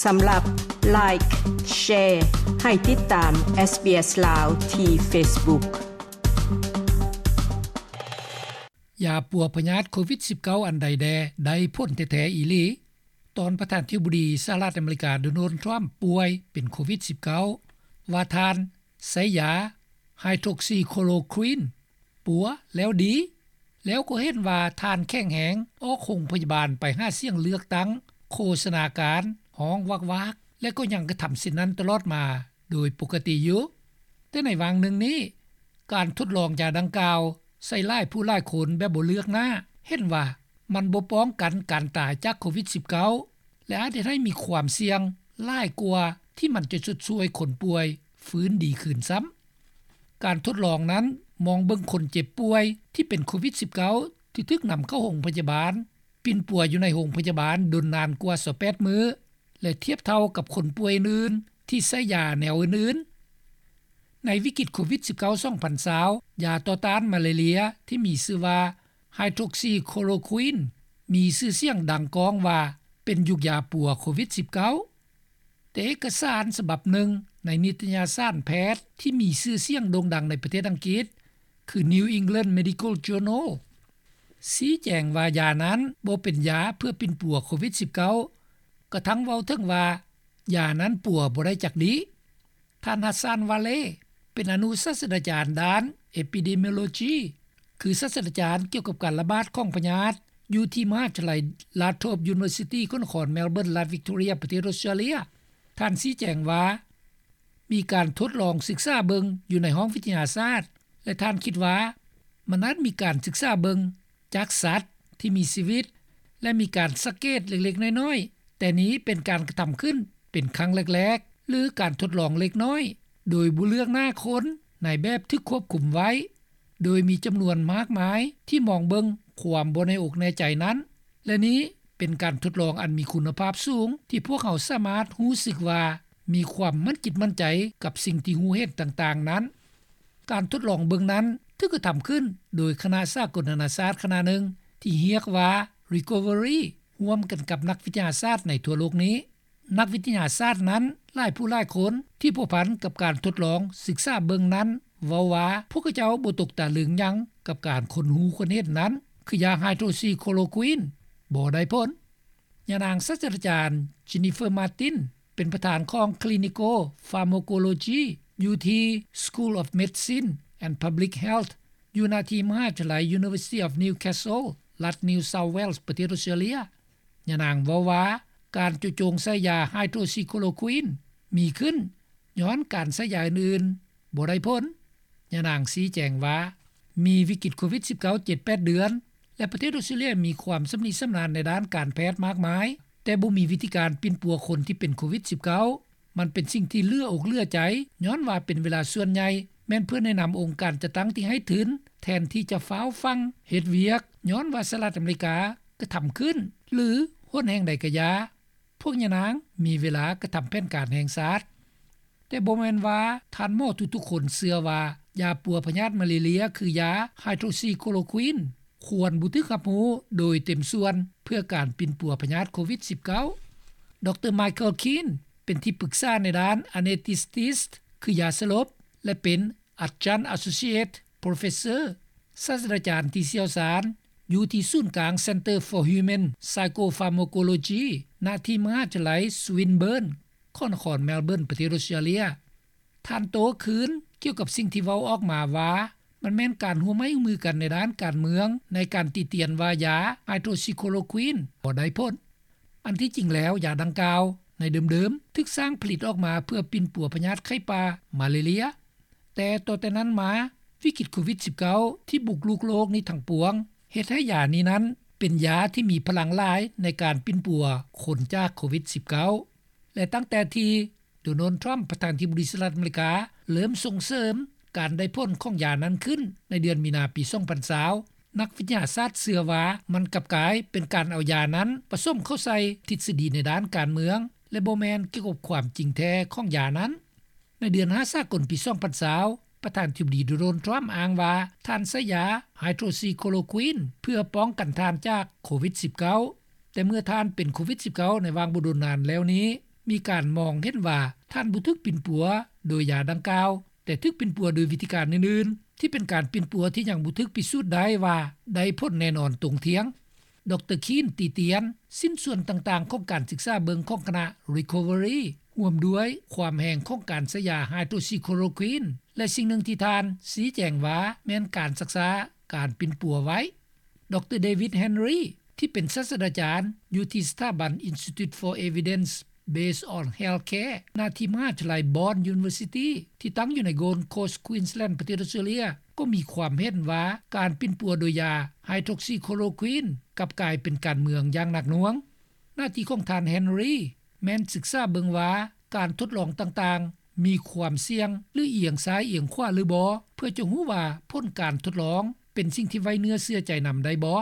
ສຳລັບ Like, Share ໃຫ້ຕິດຕາມ SBS ລາວ ທີ່ Facebook. ຢາປົວພະຍາດໂຄວິດ-19 ອັນໃດແດ່ໄດ້ຜົນແທ້ໆອີ່ຫຼີ? ຕອນປະທານທິບໍດີສະຫະລັດອາເມລິກາ ໂດນັລ ທຣຳ ປ່ວຍເປັນໂຄວິດ-19 ວ່າທ່ານໃຊ້ຢາ Hydroxychloroquine ປົວແລ້ວດີ, ແລ້ວກໍເຫັນວ່າທ່ານແຂງແຮງ ອອກໂຮງພະຍາບານໄປຫາສຽງເລືອກຕັ້ງ, ໂຄສະນາການ, ຮ້ອງວາກໆ ແລະ ກໍຍັງກະທຳເຊັ່ນນັ້ນຕະຫຼອດມາໂດຍປົກກະຕິຢູ່. ແຕ່ໃນຫວ່າງໜຶ່ງນີ້, ການທົດລອງຢາດັ່ງກ່າວໃສ່ຫຼາຍຜູ້ຫຼາຍຄົນແບບບໍ່ເລືອກໜ້າ ເຫັນວ່າມັນບໍ່ປ້ອງກັນການຕາຍຈາກໂຄວິດ-19 ແລະ ອາດເຮັດໃຫ້ມີຄວາມສ່ຽງຫຼາຍກວ່າທີ່ມັນຈະຊົດຊ່ວຍຄົນປ່ວຍຟື້ນດີຄືນຊ້ຳ. ການທົດລອງນັ້ນມອງເບິ່ງຄົນເຈັບປ່ວຍທີ່ເປັນໂຄວິດ-19 ທີ່ຖືກນຳເຂົ້າໂຮງພະຍາບານ, ປິ່ນປົວຢູ່ໃນໂຮງພະຍາບານດົນນານກວ່າຊາວແປດມື້ ແລະ ທຽບເທົ່າກັບຄົນປ່ວຍອື່ນໆທີ່ໃຊ້ຢາແນວອື່ນໆ. ໃນວິກິດໂຄວິດ-19 ສອງພັນຊາວ ຢາຕໍ່ຕ້ານມາລາເຣຍທີ່ມີຊື່ວ່າ Hydroxychloroquine ມີຊື່ສຽງດັງກ້ອງວ່າເປັນຍຸກຢາປົວໂຄວິດ-19. ແຕ່ເອກະສານສະບັບໜຶ່ງໃນນິຕະຍະສານແພດທີ່ມີຊື່ສຽງໂດ່ງດັງໃນປະເທດອັງກິດ ຄື New England Medical Journal ຊີ້ແຈງວ່າຢານັ້ນບໍ່ເປັນຢາເພື່ອປິ່ນປົວໂຄວິດ-19 ກະທັ່ງເວົ້າເຖິງວ່າຢານັ້ນປົວບໍ່ໄດ້ຈັກດີ້. ທ່ານ Hassan Valleh ເປັນອະນຸສາດສະດາຈານດ້ານ Epidemiology ຄືສາດສະດາຈານກ່ຽວກັບການລະບາດຂອງພະຍາດ ຢູ່ທີ່ມະຫາວິທະຍາໄລ Ladhrop University ຂອງນະຄອນ Melbourne ລັດ Victoria ປະເທດ Australia. ທ່ານຊີ້ແຈງວ່າ ມີການທົດລອງສຶກສາເບິ່ງຢູ່ໃນຫ້ອງວິທະຍາສາດ ແລະ ທ່ານຄິດວ່າມັນອາດມີການສຶກສາເບິ່ງຈາກສັດທີ່ມີຊີວິດ ແລະ ມີການສັງເກດເລັກໆນ້ອຍໆ, ແຕ່ນີ້ເປັນການກະທຳຂຶ້ນເປັນຄັ້ງແລກໆ ຫຼື ການທົດລອງເລັກນ້ອຍ ໂດຍບໍ່ເລືອກໜ້າຄົນໃນແບບຖືກຄວບຄຸມໄວ້ ໂດຍມີຈຳນວນມາກມາຍທີ່ມອງເບິ່ງຄວາມບໍ່ແນ່ອົກແນ່ໃຈນັ້ນ ແລະ ນີ້ເປັນການທົດລອງອັນມີຄຸນນະພາບສູງ ທີ່ພວກເຮົາສາມາດຮູ້ສຶກວ່າມີຄວາມໝັ້ນຈິດໝັ້ນໃຈກັບສິ່ງທີ່ຮູ້ເຫັນຕ່າງໆນັ້ນ. ການທົດລອງເບິ່ງນັ້ນຖືກກະທຳຂຶ້ນໂດຍຄະນະສາກົນນານາຊາດຄະນະໜຶ່ງທີ່ຮຽກວ່າ Recovery ຮ່ວມກັນກັບນັກວິທະຍາສາດໃນທົ່ວໂລກນີ້. ນັກວິທະຍາສາດນັ້ນຫຼາຍຜູ້ຫຼາຍຄົນທີ່ພົວພັນກັບການທົດລອງສຶກສາເບິ່ງນັ້ນເວົ້າວ່າ ພວກເຂົາເຈົ້າບໍ່ຕົກຕະລຶງຫຍັງກັບການຄົ້ນຮູ້ຄົ້ນເຫັນນັ້ນ ຄືຢາ Hydroxychloroquine ບໍ່ໄດ້ຜົນ. ຍານາງສາດສະດາຈານ Jennifer Martin ເປັນປະທານຂອງ Clinical Pharmacology ຢູ່ທີ່ School of Medicine and Public Health ຢູ່ນະທີ່ມະຫາວິທະຍາໄລ University of Newcastle ລັດ New South Wales ປະເທດ Australia. ຍານາງເວົ້າວ່າ ການເຈາະຈົງໃສ່ຢາ Hydroxychloroquine ມີຂຶ້ນຍ້ອນການໃຊ້ຢາອື່ນໆບໍ່ໄດ້ຜົນ. ຍານາງຊີ້ແຈງວ່າ ມີວິກິດໂຄວິດ-19 ເຈັດແປດເດືອນ ແລະ ປະເທດອອສເຕຣເລຍມີຄວາມຊຳນິຊຳນານໃນດ້ານການແພດມາກມາຍ, ແຕ່ບໍ່ມີວິທີການປິ່ນປົວຄົນທີ່ເປັນໂຄວິດ-19. ມັນເປັນສິ່ງທີ່ເຫຼືອອົກເຫຼືອໃຈ, ຍ້ອນວ່າເປັນເວລາສ່ວນໃຫຍ່ແມ່ນເພື່ອແນະນຳອົງການຈັດຕັ້ງທີ່ໃຫ້ທຶນ ແທນທີ່ຈະຟ້າວຟັ່ງເຮັດວຽກ, ຍ້ອນວ່າສະຫະລັດອາເມລິກາກະທຳຂຶ້ນ ຫຼື ຫົນແຫ່ງໃດກະຢ່າ, ພວກຍານາງມີເວລາກະທຳແຜນການແຫ່ງຊາດ. ແຕ່ບໍ່ແມ່ນວ່າທ່ານໝໍທຸກໆຄົນເຊື່ອວ່າຢາປົວພະຍາດມາລາເຣຍຄືຢາ Hydroxychloroquine ຄວນບໍ່ຖືກຮັບຮູ້ໂດຍເຕັມສ່ວນເພື່ອການປິ່ນປົວພະຍາດໂຄວິດ-19. ດຣ Michael Keane ເປັນທີ່ປຶກສາໃນດ້ານ Anesthetics ຄືຢາສະຫຼົບ ແລະ ເປັນ Adjunct Associate Professor ສາດສະດາຈານທີ່ຊ່ຽວຊານ ຢູ່ທີ່ສູນກາງ Center for Human Psychopharmacology ນະທີ່ມະຫາວິທະຍາໄລ Swinburne ຂອງນະຄອນ Melbourne ປະເທດ Australia. ທ່ານໂຕ້ຄືນກ່ຽວກັບສິ່ງທີ່ເວົ້າອອກມາວ່າ ມັນແມ່ນການຮ່ວມໄມ້ຮ່ວມມືກັນໃນດ້ານການເມືອງ ໃນການຕິຕຽນວ່າຢາ Hydroxychloroquine ບໍ່ໄດ້ຜົນ. ອັນທີ່ຈິງແລ້ວ ຢາດັ່ງກ່າວໃນເດີມໆ ຖືກສ້າງຜະລິດອອກມາເພື່ອປິ່ນປົວພະຍາດໄຂ້ປ່າມາລາເຣຍ. ແຕ່ຕໍ່ແຕ່ນັ້ນມາ, ວິກິດໂຄວິດ-19 ທີ່ບຸກລຸກໂລກນີ້ທັງປວງ ເຮັດໃຫ້ຢານີ້ນັ້ນເປັນຢາທີ່ມີພະລັງຫຼາຍໃນການປິ່ນປົວຄົນຈາກໂຄວິດ-19. ແລະ ຕັ້ງແຕ່ທີ່ ໂດນັລ ທຣຳ ປະທານທິບໍດີສະຫະລັດອາເມລິກາ ເລີ່ມສົ່ງເສີມການໄດ້ຜົນຂອງຢານັ້ນຂຶ້ນໃນເດືອນມີນາປີ ສອງພັນຊາວ ນັກວິທະຍາສາດເຊື່ອວ່າມັນກັບກາຍເປັນການເອົາຢານັ້ນປະສົມເຂົ້າໃສ່ທິດສະດີໃນດ້ານການເມືອງ ແລະ ບໍ່ແມ່ນກ່ຽວກັບຄວາມຈິງແທ້ຂອງຢານັ້ນ. ໃນເດືອນຫ້າສາກົນປີ ສອງພັນຊາວ ປະທານທິບໍດີ ໂດນັລ ທຣຳ ອ້າງວ່າທ່ານໃຊ້ຢາ Hydroxychloroquine ເພື່ອປ້ອງກັນທ່ານຈາກໂຄວິດ-19. ແຕ່ເມື່ອທ່ານເປັນໂຄວິດ-19 ໃນຫວ່າງບໍ່ດົນນານແລ້ວນີ້, ມີການມອງເຫັນວ່າ ທ່ານບໍ່ຖືກປິ່ນປົວ ໂດຍຢາດັ່ງກ່າວ ແຕ່ຖືກປິ່ນປົວ ໂດຍວິທີການອື່ນໆ ທີ່ເປັນການປິ່ນປົວ ທີ່ຍັງບໍ່ຖືກພິສູດໄດ້ວ່າ ໄດ້ຜົນແນ່ນອນຕົງທ່ຽງ. ດຣ. ຄີນ ຕີຕຽນ ຊິ້ນສ່ວນຕ່າງໆ ຂອງການສຶກສາເບິ່ງ ຂອງຄະນະ Recovery ຮ່ວມດ້ວຍຄວາມແຮງ ຂອງການໃຊ້ຢາ Hydroxychloroquine ແລະສິ່ງໜຶ່ງທີ່ທ່ານ ຊີ້ແຈງວ່າ ແມ່ນການຊັກຊ້າ ການປິ່ນປົວໄວ້. ດຣ. David Henry ທີ່ເປັນສາສດາຈານ ຢູ່ທີ່ສະຖາບັນ Institute for Evidence-Based on Healthcare ນາທີ່ມະຫາວິທະຍາໄລ Bond University ທີ່ຕັ້ງຢູ່ໃນ Gold Coast Queensland ປະເທດອອສເຕຣເລັຍ ກໍມີຄວາມເຫັນວ່າ ການປິ່ນປົວໂດຍຢາ Hydroxychloroquine ກັບກາຍເປັນການເມືອງຢ່າງໜັກໜ່ວງ. ໜ້າທີ່ຂອງທ່ານ Henry ແມ່ນສຶກສາເບິ່ງວ່າ ການທົດລອງຕ່າງໆ ມີຄວາມສ່ຽງ ຫຼື ອຽງຊ້າຍອຽງຂວາ ຫຼືບໍ່ ເພື່ອຈະຮູ້ວ່າ ຜົນການທົດລອງ ເປັນສິ່ງທີ່ໄວ້ເນື້ອເຊື່ອໃຈນຳໄດ້ບໍ່.